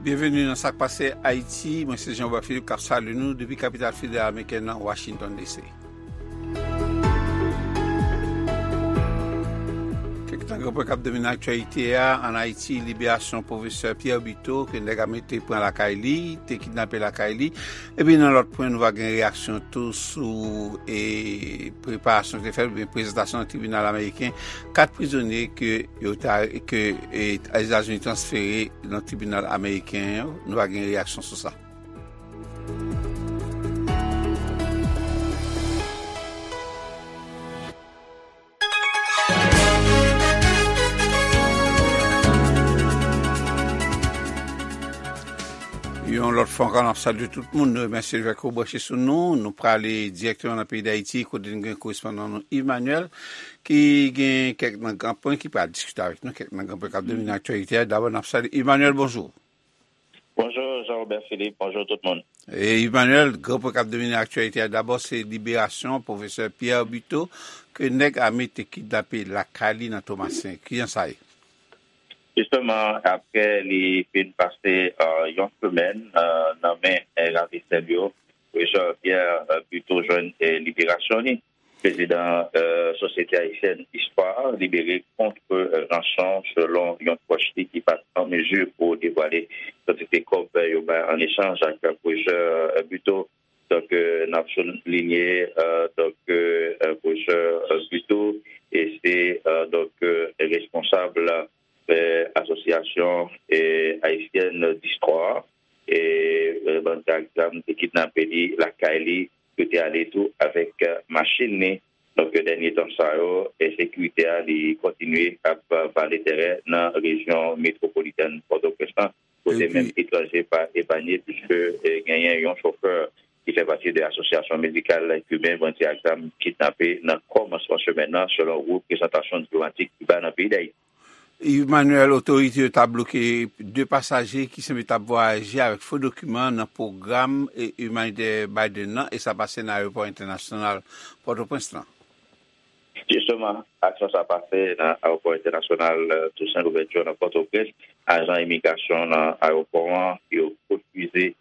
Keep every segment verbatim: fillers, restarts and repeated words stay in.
Byenveni nan Sa k Pase Ayiti. Mwen se Jean Robert Philippe k ap salye nou depi kapital federal amerikèn nan, Washington D C. Kèk nan gran pwen k ap domine aktyalite a, ann Ayiti, liberasyon pwofesè Pierre Buteau, ke nèg ame te pran lakay li, te kidnape lakay li. Epi nan lòt pwen, nou va gen reyaksyon tou sou, e, preparasyon ki te fèt, oubyen prezantasyon nan tribinal ameriken, kat prizonye ke yo ta, ke, e, Etazini transfere nan tribinal ameriken yo. Nou va gen reyaksyon sou sa. Yon lòt fwa ankò, n ap salye tout moun. Nou remèsye lè ke w branche sou nou. Nou prale dirèkteman nan peyi Dayiti, kote n gen korespondan nou Yves Manuel, ki gen kèk nan gran pwen ki pral diskite avèk nou, kèk nan gran pwen k ap domine aktyalite a. Dabò, n ap salye Yves Manuel, bonjou. Bonjou, Jean Robert Philippe. Bonjou, tout moun. E, Yves Manuel, gran pwen k ap domine aktyalite a, dabò, se liberasyon pwofesè Pierre Buteau, ke nèg ame te kidnape lakay li nan Tomasen. Kijan sa ye? Jisteman, apre li fin pase, euh, yon semèn, euh, nan men, euh, ravistè yo, pwofesè Pierre, euh, Buteau jwenn, euh, liberasyon li. Prezidan, euh, Sosyete Ayisyèn Istwa libere kont, euh, ranson, selon yon pwòch li ki pa t an mezi pou devwale kantite kòb, euh, yo bay an echanj ak, euh, pwofesè, euh, Buteau. Donk, euh, n ap soulinye, euh, donk, euh, euh, pwofesè, euh, Buteau, e se, euh, donk, euh, responsab, euh, Asosyasyon, euh, Ayisyèn Distwa, e, euh, bandi ak zam te kidnape li lakay li, yo te ale tou avèk, euh, machin li. Donk, dènye tan sa yo, ensekirite a, li kontinye ap, euh, vale tèren nan rejyon metwopolitèn Pòtoprens lan, kote menm etranje pa epanye, piske, euh, genyen yon chofè ki fè pati de Asosyasyon Medikal Kiben, bandi ak zam kidnape nan kòmansman semèn nan, selon reprezantasyon diplomatik Kiba nan peyi Dayiti. Emmanuel, otorite yo ta bloke de pasaje ki sanble t ap vwayaje avèk fo dokiman nan pwogram, e, imanitè Biden nan, e sa pase nan ayewopò entènasyonal Pòtoprens lan. Jisteman, aksyon sa pase nan ayewopò entènasyonal, euh, Toussaint Louverture nan Pòtoprens. Ajan imigrasyon nan ayewopò an, yo refize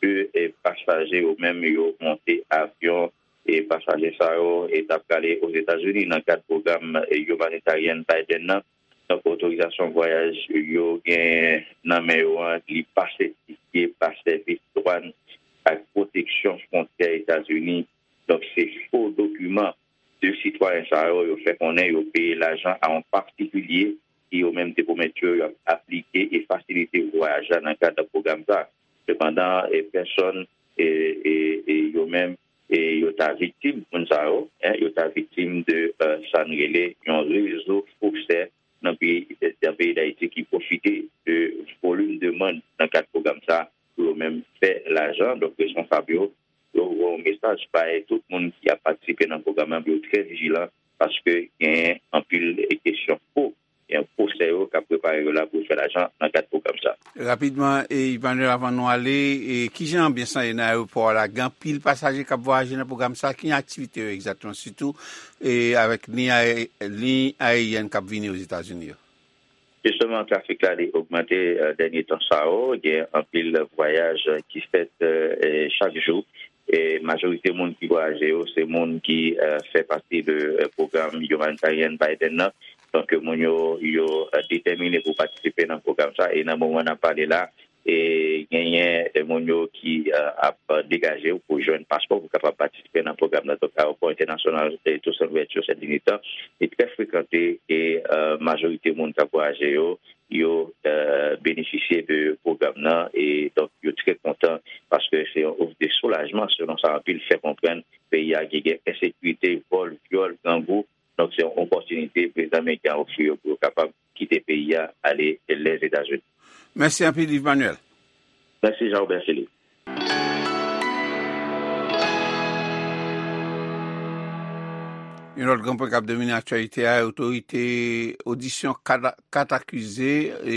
ke, e, pasaje yo menm yo monte avyon, e pasaje sa yo, e, t ap prale Ozetazini nan kad pwogram, e, imanitè Biden nan. Donk, otorizasyon vwayaj yo gen nan men yo an, li pa sètifye pa sèvis dwàn ak pwoteksyon fwontyè Etazini. Donk, se fo dokiman de sitwayen sa yo, yo fè konnen yo peye lajan a yon patikilye ki yo menm te pwomèt yo, y ap aplike e fasilite vwayaj la nan kad pwogram sa. Sepandan, e, pèsòn, e, e, e yo menm, e yo ta viktim, moun sa yo, en, yo ta viktim de, euh, sa n rele yon rezo fosè nan peyi, nan peyi Dayiti ki pwofite de volim demann nan kad pwogram sa pou yo menm fè lajan. Donk, responsab yo, yo voye yon mesaj bay tout moun ki ap patisipe nan pwogram nan pou yo trè vijilan, paske gen anpil kesyon fo, gen fosè yo k ap prepare yo la pou yo fè lajan nan kad pwogram sa. Rapidman, e, Emmanuel, avan nou ale, e, kijan anbyans lan ye nan ayewopò a la? Gen anpil pasaje k ap vwayaje nan pwogram sa. Ki aktivite yo egzakteman, sitou, e, avèk liy aye-, liy ayeryèn k ap vini Ozetazini yo? Jisteman, trafik la, li ogmante, e, dènye tan sa yo. Gen anpil vwayaj ki fèt, e, e, chak jou. E majorite moun ki vwayaje yo, se moun ki, e, fè pati de, e, pwogram imanitè Biden nan. Donk, moun yo, yo, e, detèmine pou patisipe nan pwogram sa. E nan moman n ap pale la, e genyen, e, moun yo ki, e, ap degaje yo pou jwenn paspò pou kapab patisipe nan pwogram nan. Donk, ayewopò entènasyonal, e, Toussaint Louverture, Saint Denis tan, li trè frekante, e, e, majorite moun k ap vwayaje yo, yo, e, benefisye de pwogram nan, e donk yo trè kontan paske se yon ouf de soulajman, selon sa anpil fè konprann. Peyi a ki gen ensekirite, vòl, vyòl, grangou, donk se yon opòtinite prezidan ameriken an ofri yo pou yo kapab kite peyi a, ale Lèzetazini. Mèsi anpil, Yves Manuel. Mèsi, Jean Robert Philippe. Yon lòt gran pwen k ap domine aktyalite a, otorite, odisyon kat, kat akize, e,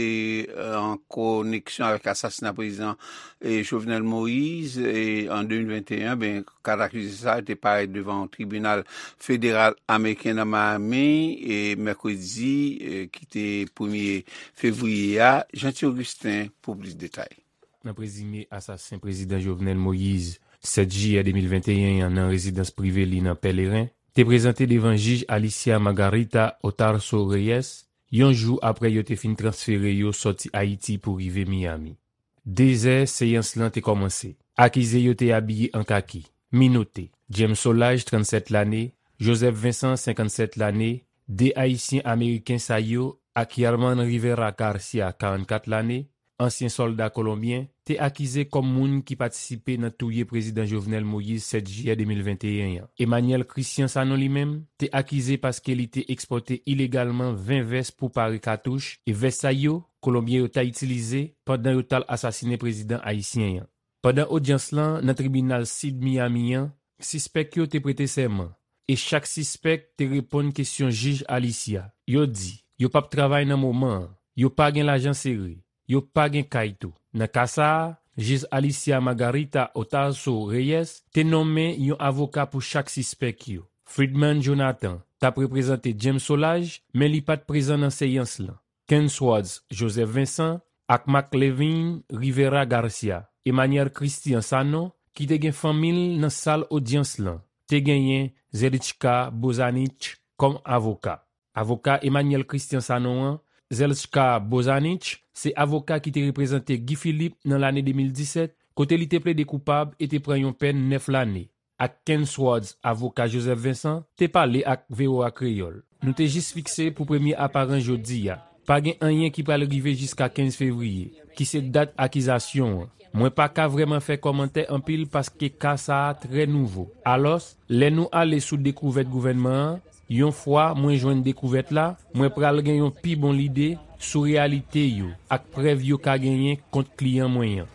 an koneksyon avèk asasina prezidan, e, Jovenel Moïse, e, an de mil venteyen, ben, kat akize sa yo te parèt devan yon tribinal federal ameriken nan Miami, e, mèkredi, e, ki te premye fevriye a. Jeanty Augustin pou plis detay. nan prezime asasen prezidan Jovenel Moïse, sèt jiyè de mil venteyen an nan rezidans prive li nan Pèleren, te prezante devan jij Alicia Margarita Otarso Reyes, yon jou apre yo te fin transfere yo sòti Ayiti pou rive Miami. Dezè seyans lan te kòmanse. Akize yo te abiye an kaki, minote. James Solages, trannsèt lane, Joseph Vincent, senkannsèt lane, de Ayisyen Ameriken sa yo, ak Yerman Rivera Garcia, karannkat lane, ansyen sòlda kolonbyen, te akize kòm moun ki patisipe nan touye prezidan Jovenel Moïse sèt jiyè de mil venteyen an. Emmanuel Christian Sanon li menm te akize paske li te ekspòte ilegalman ven vès pou pare katouch, e vès sa yo, kolonbyen yo ta itilize pandan yo t al asasinen prezidan ayisyen an. Pandan odyans lan nan tribinal Sid Miami an, sispèk yo te prete sèman, e chak sispèk te reponn kesyon jij Alicia. Yo di, yo p ap travay nan moman an, yo pa gen lajan sere, yo pa gen kay tou. Nan ka sa a, jij Alicia Margarita Otarso Reyes te nonmen yon avoka pou chak sispèk yo. Fridman Jonathan t ap reprezante James Solages, men li pa t prezan nan seyans lan. Kensworth Joseph Vincent ak Marc Levine Rivera Garcia. Emmanuel Christian Sanon, ki te gen fanmi l nan sal odyans lan, te genyen Zelichka Bozanich kòm avoka. Avoka Emmanuel Christian Sanon an, Zelchka Bozanich, se avoka ki te reprezante Guy Philippe nan lane de mil disèt, kote li te plede koupab e te pran yon pèn nèf lane. Ak Kensworth, avoka Joseph Vincent, te pale ak V O A Kreyòl. Nou te jis fikse pou premye aparans jodi a. Pa gen anyen ki pral rive jiska kenz fevriye, ki se dat akizasyon an. Mwen pa ka vrèman fè kòmantè anpil paske ka sa a trè nouvo. Alòs, lè nou ale sou dekouvèt gouvènman an, yon fwa mwen jwenn dekouvèt la, mwen pral gen yon pi bon lide sou reyalite yo ak prèv yo ka genyen kont kliyan mwen an.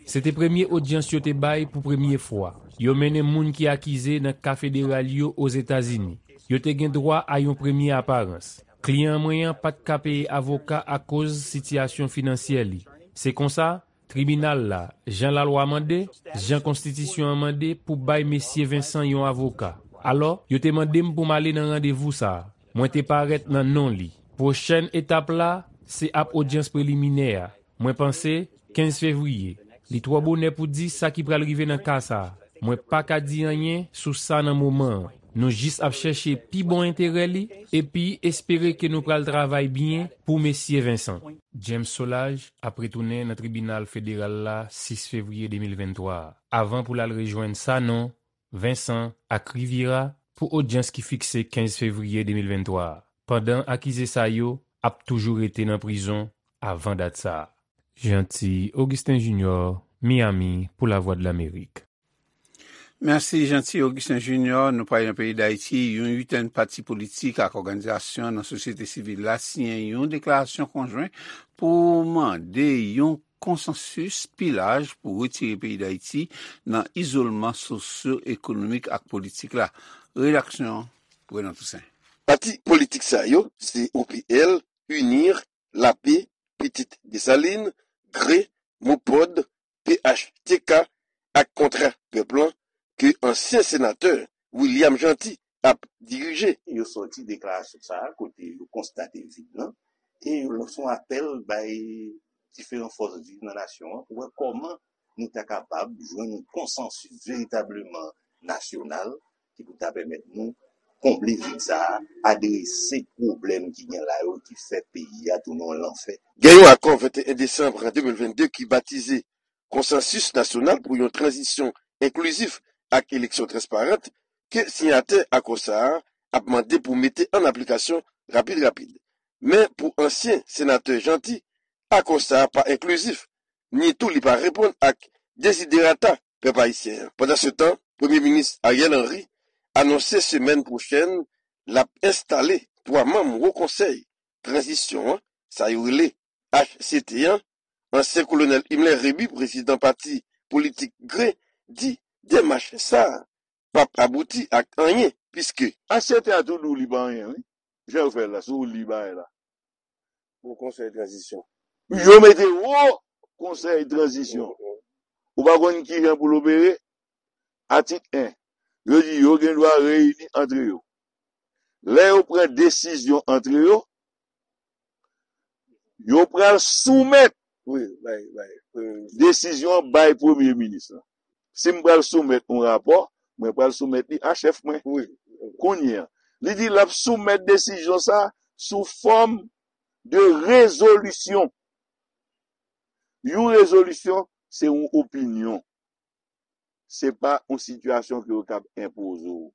Se te premye odyans yo te bay pou premye fwa. Yo mennen moun ki akize nan ka federal yo Ozetazini. Yo te gen dwa a yon premye aparans. Kliyan mwen an pa t ka peye avoka akoz sitiyasyon finansyè li. Se konsa, tribinal la, jan lalwa mande, jan konstitisyon an mande pou bay mesye Vincent yon avoka. Alò, yo te mande m pou m ale nan randevou sa a. Mwen te parèt nan non li. Pwochèn etap la, se ap odyans preliminè a. Mwen panse, kenz fevriye. Li twò bonè pou di sa ki pral rive nan ka sa a. Mwen pa ka di anyen sou sa nan moman an. Nou jis ap chèche pi bon enterè li, epi espere ke nou pral travay byen pou mesye Vincent. James Solages ap retounen nan tribinal federal la sis fevriye de mil venntwa a, avan pou l al rejwenn Sanon, Vincent ak Riviera pou odyans ki fikse kenz fevriye de mil venntwa a, pandan akize sa yo ap toujou rete nan prizon avan dat sa a. Jeanty Augustin Junior, Miami, pou Lavwadlamerik. Mèsi, Jeanty Augustin Junior. Nou pral nan peyi Dayiti. Yon uitèn pati politik ak òganizasyon nan sosyete sivil la siyen yon deklarasyon konjwen pou mande yon konsansis pi laj pou retire peyi Dayiti nan izolman sosyo-ekonomik ak politik la. Redaksyon, Renan Toussaint. Pati politik sa yo se O P L, UNIR, Lape, Pitit Desalin, Gre, Mopod, P H T K ak Kontra Pèp lan ke ansyen senatè William Jeanty ap dirije. Yo sòti deklarasyon sa a kote yo konstate vid lan e yo lanse yon apèl bay diferan fòs viv nan nasyon an pou wè kòman nou ta kapab jwenn yon konsansis veritableman nasyonal ki pou ta pèmèt nou konble vid sa a, adrese pwoblèm ki gen la yo ki fè peyi a tounen yon lanfè. Gen yon akò venteyen desanm de mil vennde ki batize Konsansis Nasyonal pou yon Tranzisyon Enklizif ak Eleksyon Transparant ke siyatè akò sa a ap mande pou mete an aplikasyon rapid rapid. Men pou ansyen senatè Jeanty, akò sa a pa enklizif, ni tou li pa reponn ak deziderata pèp ayisyen an. Pandansetan, Premye Minis Ariel Henry anonse semèn pwochèn l ap enstale twa manm Wo Konsèy Tranzisyon an, sa yo rele H C T an, ansyen Kolonèl Himmler Rébu, prezidan pati politik Gre, di demach sa a p ap abouti ak anyen, piske. H C T a tou di w li pa anyen, wi. Jan yo fè l la, si w li bagay la. Wo Konsèy Tranzisyon. Yo mete Wo Konsèy Tranzisyon. Ou pa konn kijan pou l opere? Atik en, yo di yo gen dwa reyini antre yo. Lè yo pran desizyon antre yo, yo pral soumèt Wi, bay, bay, premye minis. Desizyon an bay premye minis lan. Si m pral soumèt yon rapò, mwen pral soumèt li a chèf mwen. Wi. Kounye a, li di l ap soumèt desizyon sa a sou fòm de rezolisyon. Yon rezolisyon, se yon opinyon. Se pa yon sitiyasyon ke yo kab enpoze w.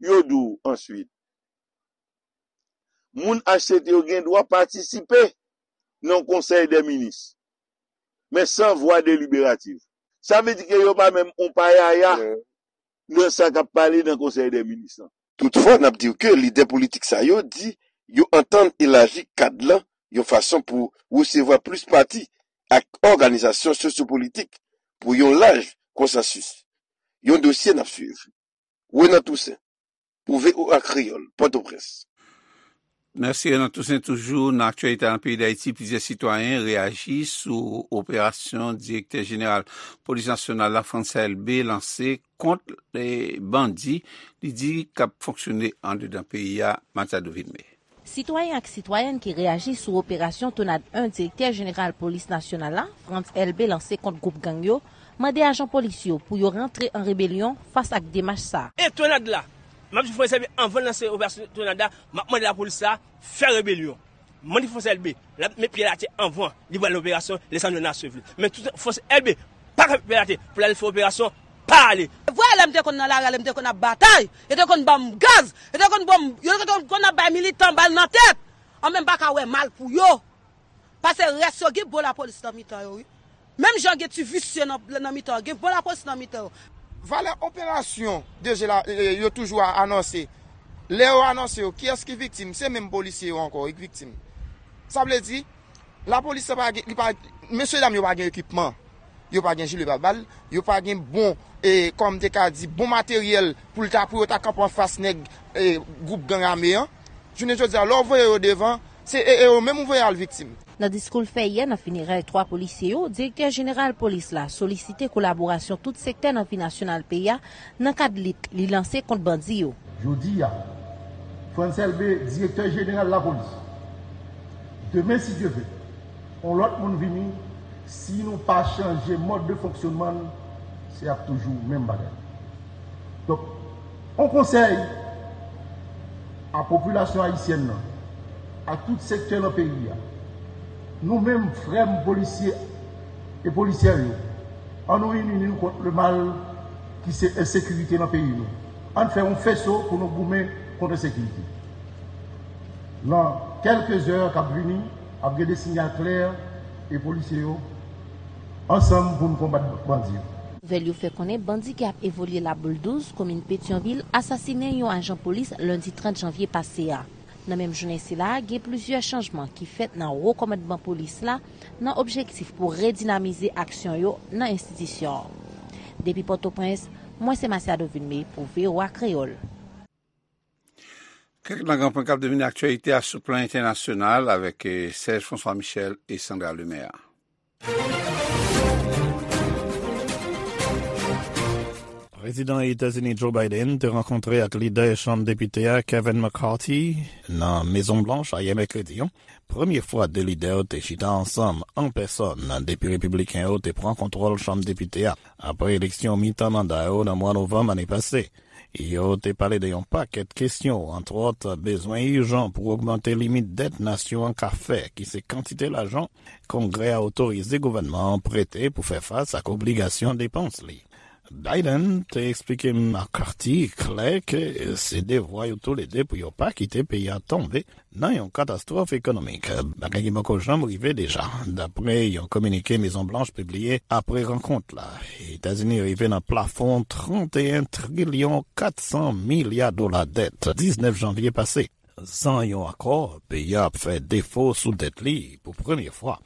Yo di w answit, moun H C T yo gen dwa patisipe nan konsèy dè minis, men san vwa deliberativ. Sa vle di ke yo pa menm yon payaya nan sa k ap pale nan konsèy dè minis lan. Toutfwa, n ap di w ke lidè politik sa yo di yo antann elaji kad lan yon fason pou resevwa plis pati ak òganizasyon sosyopolitik pou yon laj konsansis. Yon dosye n ap swiv. Renan Toussaint, pou V O A Kreyòl, Pòtoprens. Mèsi, Renan Toussaint. Toujou nan aktyalite nan peyi Dayiti, plizyè sitwayen reyaji sou operasyon direktè jeneral polis nasyonal la, Frantz Elbé, lanse kont, eh, bandi li di k ap fonksyone andedan peyi a, Matiado Vilmé. Sitwayen ak sitwayèn ki reyaji sou operasyon Tonad en direktè jeneral polis nasyonal la, Frantz Elbé, lanse kont gwoup gang yo, mande ajan polis yo pou yo rantre an rebelyon fas ak demach sa a. E Tonad la, m ap di Frantz Elbé, anvan l lanse operasyon Tonad la, m ap mande lapolis la fè rebelyon. Mande Frantz Elbé, l ap met pye l atè anvan li pral nan operasyon Lisandro Nasseville. Men tout Frantz Elbé pa ka met pye l atè pou l al fè operasyon, pa ale. Vwè lè m te konn nan lari a, lè m te konn ap batay, yo te konn ban m gaz, yo te konn ban m, yo te konn ap bay militan bal nan tèt. An men m pa ka wè mal pou yo. Paske rès yo gen bon lapolis nan mitan yo, wi. Menm jan gen ti visye nan, nan mitan yo, gen bon lapolis nan mitan yo. Valè operasyon D G la, e, e, yo toujou a anonse. Lè yo anonse yo, kiyès ki viktim? Se menm polisye yo ankò, wi, ki viktim. Sa vle di, lapolis la pa gen, li pa, mesye dam yo pa gen ekipman. Yo pa gen jile pabal, yo pa gen bon, e, kòm te ka di, bon materyèl pou l ta, pou yo ta kanpe anfas nèg, e, gwoup gang ame an. Jounen jodi a, lè w voye yo devan, se e, e yo menm ou voye al viktim. Nan diskou l fè yè nan finerèy twa polisye yo, direktè jeneral polis la solisite kolaborasyon tout sektè nan vi nasyonal peyi a nan kad lit li lanse kont bandi yo. Jodi a, Frantz Elbé, direktè jeneral lapolis. Demen, si Dye vle, yon lòt moun vini, si nou pa chanje mòd de fonksyonman n, se ap toujou menm bagay. Donk, yon konsèy a popilasyon ayisyèn nan, ak tout sektè nan peyi a, nou menm, frè m polisye e polisyè yo, ann nou ini nou kont le mal ki se ensekirite nan peyi nou. Ann fè yon feso pou nou goumen kont ensekirite. Nan kèlke zè k ap vini, ap gen de sinyal klè e polisye yo ansanm pou n konbat bandi yo. Nouvèl yo fè konnen bandi ki ap evolye Laboul douz, komin Petyonvil, asasinen yon ajan polis lendi trant janvye pase a. Nan menm jounen sila a, gen plizyè chanjman ki fèt nan wo kòmandman polis la nan objektif pou redinamize aksyon yo nan enstitisyon an. Depi Pòtoprens, mwen se Masiado Vilmé pou V O A Kreyòl. Kèk nan gran pwen k ap domine aktyalite a sou plan entènasyonal avèk, eh, Serge François Michel e Sandra Lemaire. Prezidan Etazini Joe Biden te rankontre ak lidè Chanm Depite a Kevin McCarthy nan Mezon Blanch ayè mèkredi an. Premye fwa de lidè yo te chita ansanm an pèsòn depi Repibliken yo te pran kontwòl Chanm Depite a apre eleksyon mitan manda yo nan mwa novanm ane pase. Yo te pale de yon pakèt kesyon, antwòt, bezwen ijan pou ogmante limit dèt nasyon an ka fè, ki se kantite lajan Kongrè a otorize gouvènman an prete pou fè fas ak obligasyon depans li. Biden te eksplike McCarthy klè ke se devwa yo toulede pou yo pa kite peyi a tonbe nan yon katastwòf ekonomik, bagay ki poko janm rive deja, dapre yon kominike Mezon Blanch pibliye apre rankont la. Etazini rive nan plafon trant e en trilyon kat san milya dola dèt diznèf janvye pase. San yon akò, peyi a ap fè defo sou dèt li pou premye fwa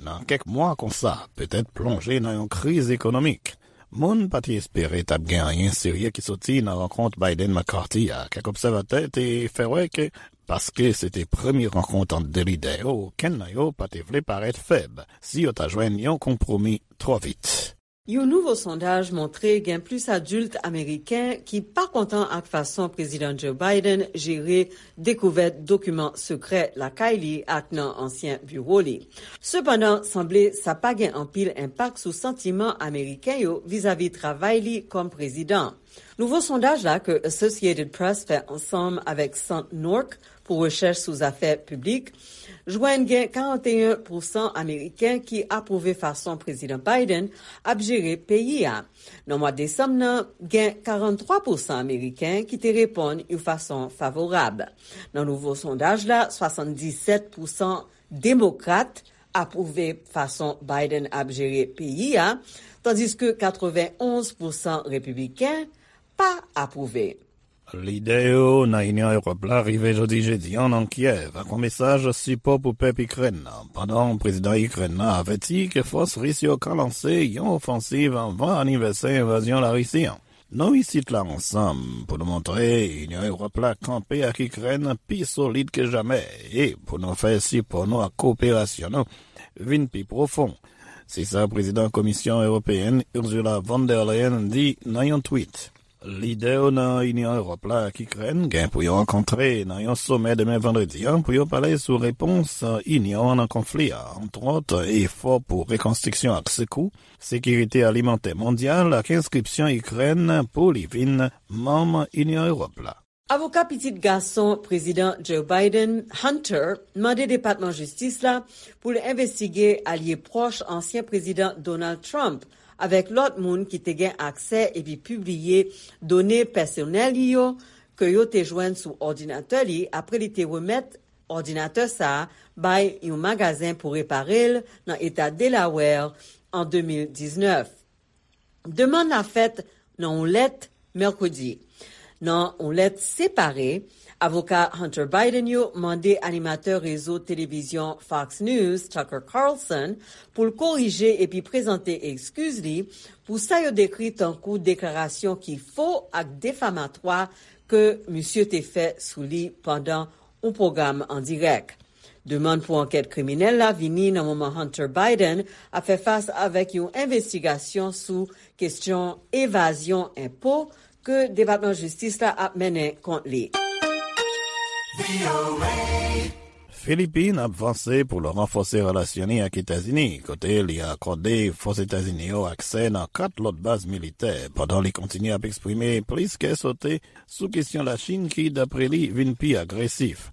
nan kèk mwa, konsa petèt plonje nan yon kriz ekonomik. Moun pa t espere t ap gen anyen serye ki soti nan rankont Biden-McCarthy a. Kèk obsèvatè te fè wè ke paske se te premye rankont ant de lidè yo, okenn nan yo pa te vle parèt fèb si yo ta jwenn yon konpwomi twò vit. Yon nouvo sondaj montre gen plis adilt ameriken ki pa kontan ak fason Prezidan Joe Biden jere dekouvèt dokiman sekrè lakay li ak nan ansyen biwo li. Sepandan, sanble sa pa gen anpil enpak sou santiman ameriken yo vizavi travay li kòm prezidan. Nouvo sondaj la ke Associated Press fè ansanm avèk Sant Nork pou rechèch sou zafè piblik jwenn gen karannteyen pousan ameriken ki apwouve fason Prezidan Biden ap jere peyi a. Nan mwa desanm nan, gen karanntwa pousan ameriken ki te reponn yon fason favorab. Nan nouvo sondaj la, swasanndisèt pousan demokrat apwouve fason Biden ap jere peyi a, tandiske katrevenonz pousan repibliken pa apwouve. Lidè yo nan Inyon Ewòp la rive jodi jedi a nan Kyèv ak yon mesaj sipò pou pèp Ikrèn nan, pandan prezidan Ikrèn nan avèti ke fòs ris yo ka lanse yon ofansiv anvan anivèsè envazyon Larisi an. Nou isit la ansanm pou nou montre Inyon Ewòp la kanpe ak Ikrèn pi solid ke jamè e pou nou fè sipò nou ak koperasyon nou vin pi pwofon. Se sa prezidan Komisyon Ewopeyèn Ursula von der Leyen di nan yon tweet. Lidè yo nan Inyon Ewòp la ak Ikrèn gen pou yo rankontre nan yon somè demen vandredi an pou yo pale sou repons Inyon an nan konfli a, antwòt efò pou rekonstriksyon ak sekou, sekirite alimantè mondyal ak enskripsyon Ikrèn pou li vin manm Inyon Ewòp la. Avoka pitit gason Prezidan Joe Biden, Hunter, mande Depatman Jistis la pou l envestige alye pwòch ansyen Prezidan Donald Trump avèk lòt moun ki te gen aksè epi pibliye done pèsonèl li yo ke yo te jwenn sou òdinatè li apre li te remèt òdinatè sa a bay yon magazen pou repare l nan eta Delaware an de mil diznèf. Demann la fèt nan yon lèt mèkredi. Nan yon lèt separe, avoka Hunter Biden yo mande animatè rezo televizyon Fox News, Tucker Carlson, pou l korije epi prezante ekskiz li pou sa yo dekri tankou deklarasyon ki fo ak defamatwa ke misye te fè sou li pandan yon pwogram an dirèk. Demann pou ankèt kriminèl la vini nan moman Hunter Biden ap fè fas avèk yon envestigasyon sou kesyon evazyon enpo ke Depatman Jistis la ap mennen kont li. Filipin ap vanse pou l ranfòse relasyon li ak Etazini, kote li akòde fòs Etazini yo aksè nan kat lòt baz militè, pandan li kontinye ap eksprime plis kè sote sou kesyon Lachin ki, dapre li, vin pi agresif.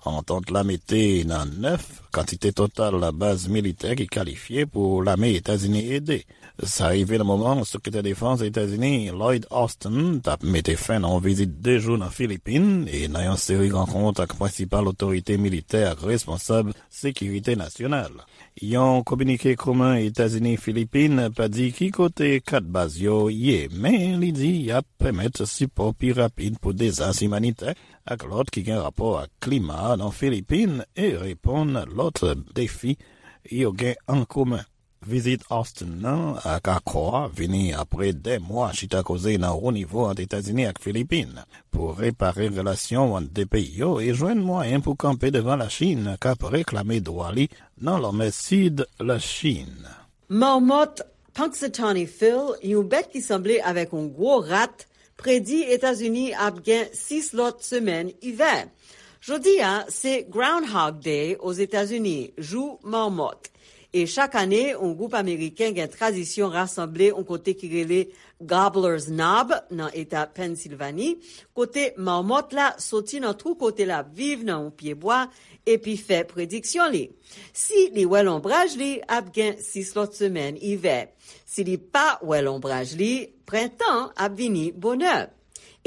Antant la mete nan nèf kantite total baz militè ki kalifye pou lame Etazini ede. Sa rive nan moman Sekretè Defans Etazini Lloyd Austin t ap mete fen nan yon vizit de jou nan Filipin e nan yon seri rankont ak prensipal otorite militè ak responsab sekirite nasyonal. Yon kominike komen Etazini-Filipin pa di ki kote kat baz yo ye, men li di y ap pèmèt sipò pi rapid pou dezas imanitè ak lòt ki gen rapò ak klima nan Filipin e reponn lòt defi yo gen an komen. Vizit Austin nan ak akò a vini apre dè mwa chita koze nan wo nivo ant Etazini ak Filipin pou repare relasyon ant de peyi yo e jwenn mwayen pou kanpe devan Lachin k ap reklame dwa li nan lanmè sid Lachin. Mamòt Punxsutawney Phil, yon bèt ki sanble avèk yon gwo rat, predi Etazini ap gen sis lòt semèn ivè. Jodi a, se Groundhog Day Ozetazini, jou mamòt. E chak ane, yon gwoup ameriken gen tradisyon rasanble yon kote ki rele Gobbler's Knob nan eta Pennsilvani, kote mamòt la soti nan twou kote l ap viv nan yon pyebwa epi fè prediksyon li. Si li wè lonbraj li, ap gen sis lòt semèn ivè. Si li pa wè lonbraj li, prentan ap vini bonè.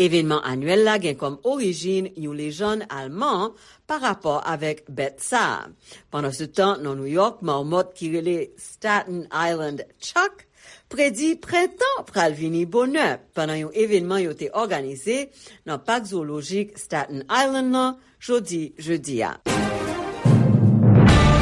Evènman anyèl la gen kòm orijin yon lejann alman pa rapò avèk bèt sa a. Pandansetan, nan Nouyòk, mamòt ki rele Staten Island Chuck predi prentan pral vini bonè pandan yon evènman yo te òganize nan Pak Zwolojik Staten Island nan jodi jedi a.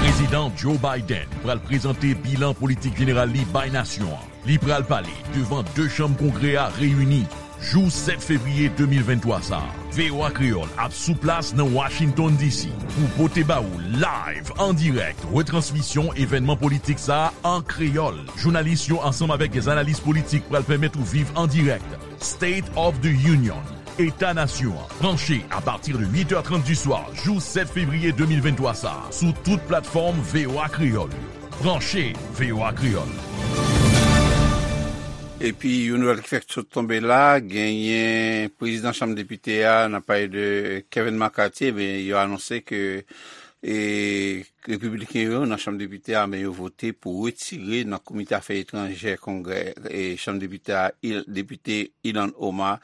Prezidan Joe Biden pral prezante bilan politik jeneral li bay nasyon an. Li pral pale devan de chanm Kongrè a reyini jou sèt fevriye de mil venntwa sa a. V O A Kreyòl ap sou plas nan Washington D C pou pote ba ou live, an dirèk, retransmisyon evènman politik sa a an kreyòl. Jounalis yo ansanm avèk dè analis politik pral pèmèt ou viv an dirèk State of the Union, Eta Nasyon an. Branche apati de uit è trant di swa jou sèt fevriye de mil venntwa sa a sou tout platfòm V O A Kreyòl yo. Branche V O A Kreyòl. Epi, yon nouvèl ki fèk sot tonbe la, genyen prezidan Chanm Depite a, n ap pale de Kevin McCarthy, ebyen, yo anonse ke, e, Repibliken yo nan Chanm Depite a, men yo vote pou retire nan Komite Afè Etranjè Kongrè, e, Chanm Depite a, Il-, Depite Ilhan Omar,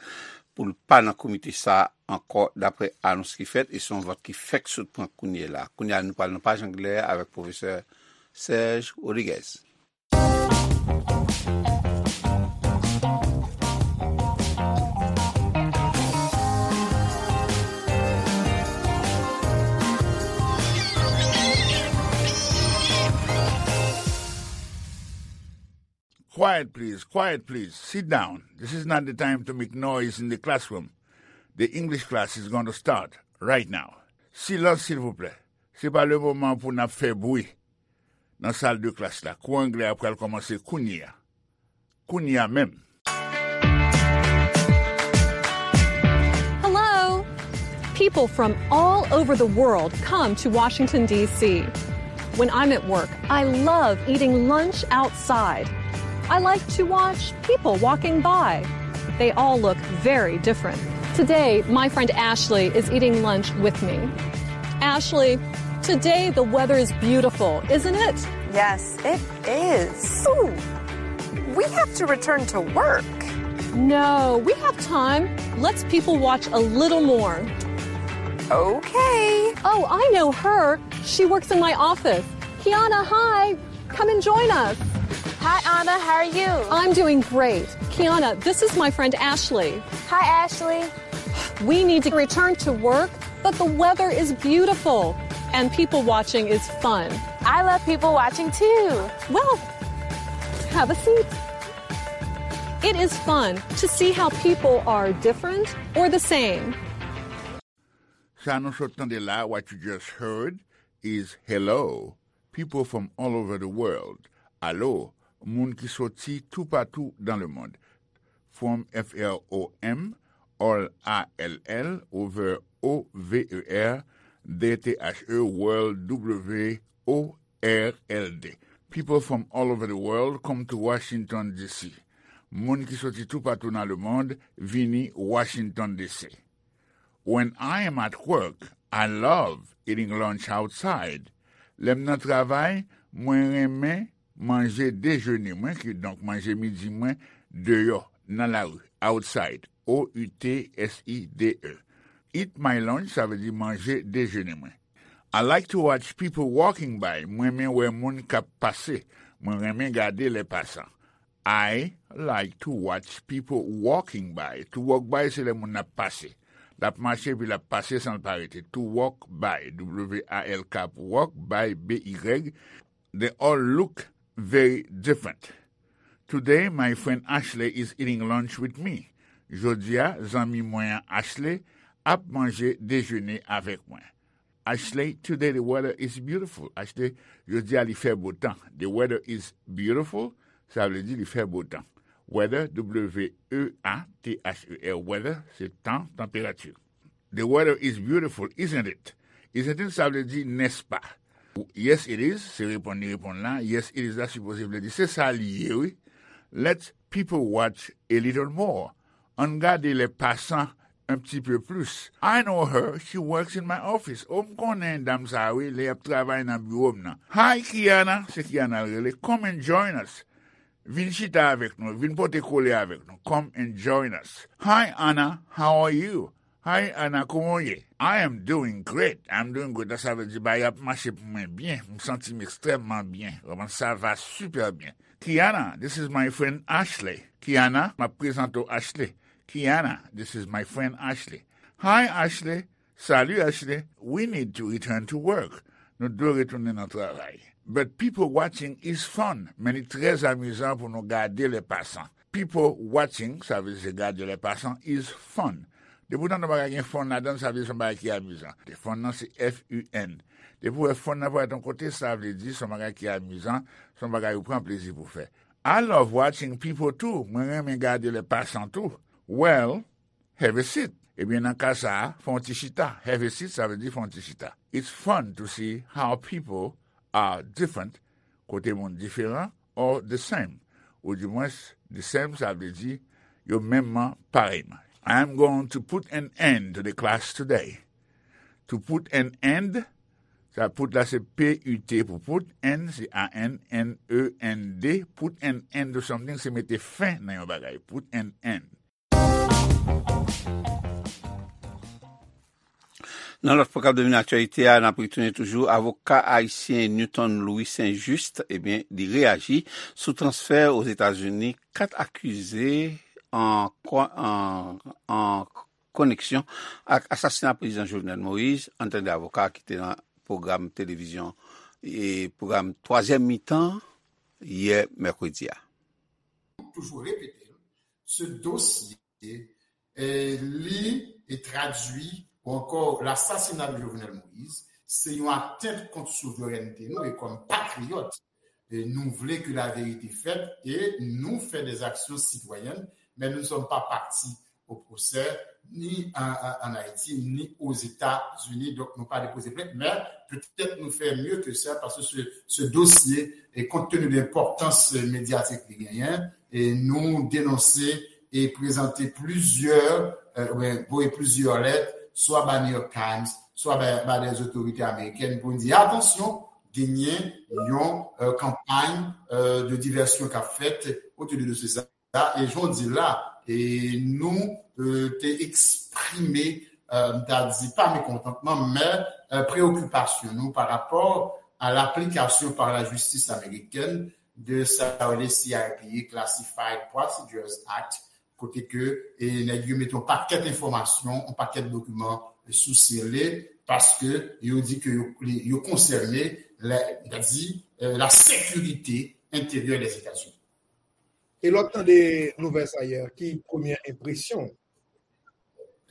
pou l pa nan komite sa a ankò, daprè anons ki fèt, e se yon vòt ki fèk sot pran kounye la. Kounye a, nou pral nan paj anglè avèk pwofesè Serge Rodriguez. Quiet, please. Quiet, please. Sit down. This is not the time to make noise in the classroom. The English class is going to start right now. Silans, silvouplè. Se pa le moman pou n ap fè bri nan sal de klas la. Kou anglè a pral kòmanse kounye a. Kounye a menm. Hello! People from all over the world come to Washington, D C. When I'm at work, I love eating lunch outside. I like to watch people walking by. They all look very different. Today, my friend Ashley is eating lunch with me. Ashley, today the weather is beautiful, isn't it? Yes, it is. Ooh, we have to return to work. No, we have time. Let's people watch a little more. Okay. Oh, I know her. She works in my office. Kiana, hi. Come and join us. Hi, Anna. How are you? I'm doing great. Kiana, this is my friend Ashley. Hi, Ashley. We need to return to work, but the weather is beautiful and people watching is fun. I love people watching too. Well, have a seat. It is fun to see how people are different or the same. Sa nou sot tande la, what you just heard, is hello, people from all over the world. Alo, moun ki soti toupatou dans le monde. From, F R O M, all, A L L, over, O V E R, D T H E, world, W O R L D. People from all over the world come to Washington, D C. Moun ki soti toupatou nan lemonn vini Washington, D C. When I am at work, I love eating lunch outside. Lè m nan travay, mwen renmen manje dejene mwen, kidonk manje midi mwen, deyò, nan lari, outside, O U T S I D E. Eat my lunch, sa vle di manje dejene mwen. I like to watch people walking by. Mwen renmen wè moun k ap pase. Mwen renmen gade lè pasan. I like to watch people walking by. To walk by, se lè moun ap pase. L ap mache, epi l ap pase san l pa rete. To walk by, W A L K pou walk, by, B Y. They all look very different. Today, my friend Ashley is eating lunch with me. Jodi a, zanmi mwen an Ashley ap manje dejene avèk mwen. Ashley, today the weather is beautiful. Ashley, jodi a li fè bo tan. The weather is beautiful, sa vle di li fè bo tan. Weather, W E A T H E R, weather, se tan, tanperati. The weather is beautiful, isn't it? Isn't it, sa vle di, nèspa? Yes, it is, se reponn li reponn la. Yes, it is la sipoze vle di, se sa li ye, wi. Let people watch a little more. Ann gade lè pasan un petit peu plus. I know her, she works in my office. O, m konnen dam sa a, wi, li ap travay nan biwo m nan. Hi, Kiana, se Kiana l rele. Come and join us. Vin chita avèk nou, vin pote kole avèk nou. Come and join us. Hi, Anna, how are you? Hi, Anna, kòman w ye? I am doing great. I'm doing great. Sa vle di, bagay ap mache pou mwen byen. M santi m ekstrèmman byen. Vrèman, ça va super bien. Kiana, this is my friend Ashley. Kiana, m ap prezante w Ashley. Kiana, this is my friend Ashley. Hi, Ashley. Salut, Ashley. We need to return to work. Nou dwe retounen nan travay. But people watching is fun. Men li trè amizan pou nou gade lè pasan. People watching, sa vle di gade lè pasan, is fun. Epoutan, nan bagay gen fun ladan l, sa vle di se yon bagay ki amizan. Fun nan se F U N. Depi w wè fun nan parèt yon kote, sa vle di se yon bagay ki amizan, se yon bagay ou pran plezi pou fè. I love watching people too. Mwen renmen gade lè pasan tou. Well, have a seat. Ebyen, nan ka sa a, fè yon ti chita. Have a seat, sa vle di fè yon ti chita. It's fun to see how people are different, kote moun diferan, or the same. Ou dimwens, the same, sa vle di yo menmman, parèyman. I'm going to put an end to the class today. To put an end, sa put la se P U T pou put, end se A N, N E N D, put an end to something, se mete fen nan yon bagay. Put an end. Nan lòt pwogram Domine Aktyalite a, n ap retounen toujou. Avoka ayisyen Newton Louis Saint-Juste, ebyen, li reyaji sou transfè Ozetazini kat akize an, an, an koneksyon ak asasina prezidan Jovenel Moïse. Ann tande avoka ki te nan pwogram televizyon e pwogram twazyèm mitan yè mèkredi a. Toujou repete, se dosye, eh, li e tradui ou ankò lasasina de Jovenel Moïse, se yon atent kont souverènte nou e kòm patriyòt, eh, nou vle ke laverite fèt e nou fè des actions citoyennes, mais nous ne sommes pas partis au procès, ni an, an, an Ayiti, ni Ozetazini. Donk, nou pa depoze plent, men petèt nou fè mye ke sa, paske se, se dosye, e kont tenu de enpòtans medyatik li genyen, e nou denonse e prezante plizyè, euh, oubyen voye plizyè lèt, swa ba New York Times, swa ba, ba des autorités américaines, pou n di, atansyon, genyen yon, euh, kanpay, euh, de divèsyon k ap fèt otou de dosye sa. E jan w di l la, e nou, euh, te eksprime, euh, m ta di pa mekontantman, men, euh, preokipasyon nou pa rapò a laplikasyon pa lajistis amerikèn de sa yo rele C I P A, Classified Procedures Act, kote ke, e, nèg yo mete yon pakèt enfòmasyon, yon pakèt dokiman sou sele, paske yo di ke yo, yo konsène, la, m ta di, euh, la sécurité intérieure des États-Unis. E lè w tande nouvèl sa yè, ki premyè enpresyon w?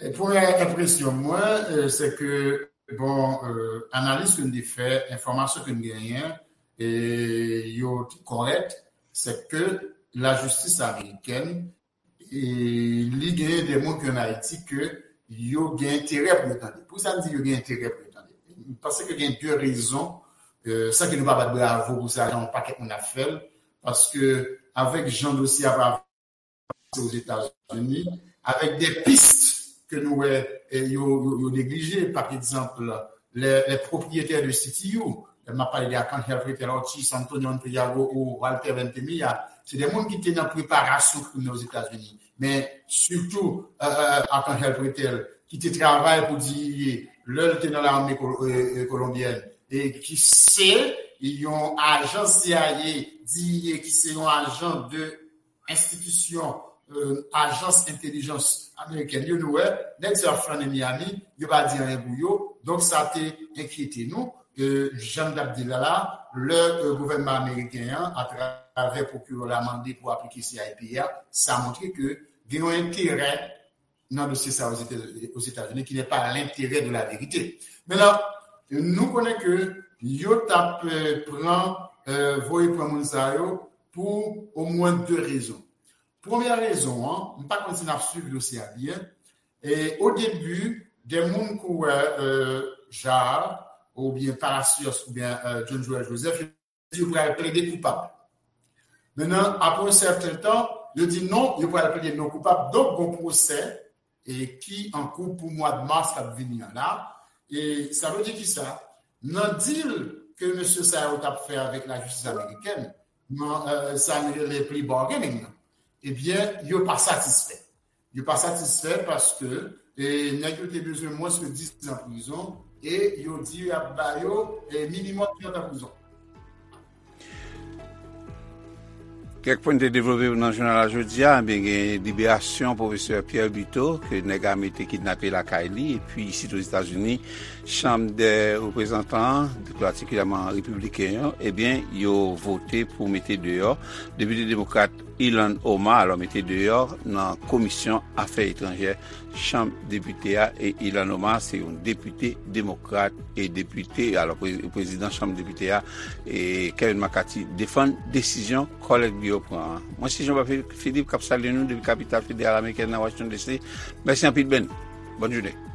E premyè enpresyon mwen, euh, se ke, bon, euh, analiz ke n te fè, enfòmasyon ke n genyen, e yo te kòrèk, se ke lajistis amerikèn, e li genyen de moun ki ann Ayiti ke yo gen enterè pou yo tande. Poukisa n di yo gen enterè pou yo tande? M panse ke gen de rezon, euh, san ke nou pa bat bravo pou sa, jan yon pakèt moun ap fè l, paske avèk jan dosye a pa Ozetazini, avèk de pis ke nou wè, eh, yo, yo, yo neglije. Pa egzanp, les, les propriétaires de C T U, lè m ap pale de Arcángel Pretel, Ortiz, Antonio Antriago ou Walter Ventimiglia, se de moun ki te nan preparasyon krim nan Ozetazini. Men sitou, euh, euh, Arcángel Pretel, ki te travay pou D E A lè l te nan lame ko-, euh, euh, kolonbyèn, e ki se yon ajan C I A, D E A, ki se yon ajan de enstitisyon, euh, ajans entèlijans amerikèn yo, nou wè, nèg sa yo ap flannen Miami, yo pa di anyen pou yo. Donk, sa te enkyete nou. Euh, jan m t ap di l la, la, lè, euh, gouvènman ameriken an, atravè pwokirè la, mande pou aplike C I P A, sa montre ke gen yon enterè nan dosye sa Ozetazini, ki n'est pas l'intérêt de la vérité. Mentnan, nou konnen ke yo t ap, euh, pran, euh, voye pran moun sa yo pou omwen de rezon. Premyè rezon an, m pa konn si n ap swiv dosye a byen. E o debi, de moun kou, euh, Jaar, oubyen Palacios, oubyen, euh, John Joël Joseph, yo pral plede koupab. Mentnan, apre yon sèten tan, yo di non, yo pral plede non koupab. Donk, gon pwosè, e, ki an kou pou mwa de mas k ap vini an la. E sa vle di kisa? Nan deal ke mesye sa yo t ap fè avèk lajistis amerikèn, nan, euh, sa yo rele plea bargaining nan, ebyen, yo pa satisfè. Yo pa satisfè paske, e, nèg yo te bezwen mwens ke diz an prizon e yo di y ap ba yo, e, minimòm trant an prizon. Kèk pwen te devlope pou nan jounal la jodi a, ebyen gen liberasyon pwofesè Pierre Buteau, ke nèg ame te kidnape lakay li, epi isit Ozetazini, Chanm dè Reprezantan an, pi patikilyèman repibliken yo, ebyen, yo vote pou mete deyò depite demokrat Ilhan Omar, alò mete deyò nan komisyon afè etranjè Chanm Depite a, e Ilhan Omar se yon depite demokrat e depite, alò pre- prezidan Chanm Depite a, e Kevin McCarthy defann desizyon kòlèg li yo pran an. Mwen se Jean Philippe k ap salye nou depi kapital federal amerikèn nan Washington D C. Mèsi anpil Ben. Bòn jounen.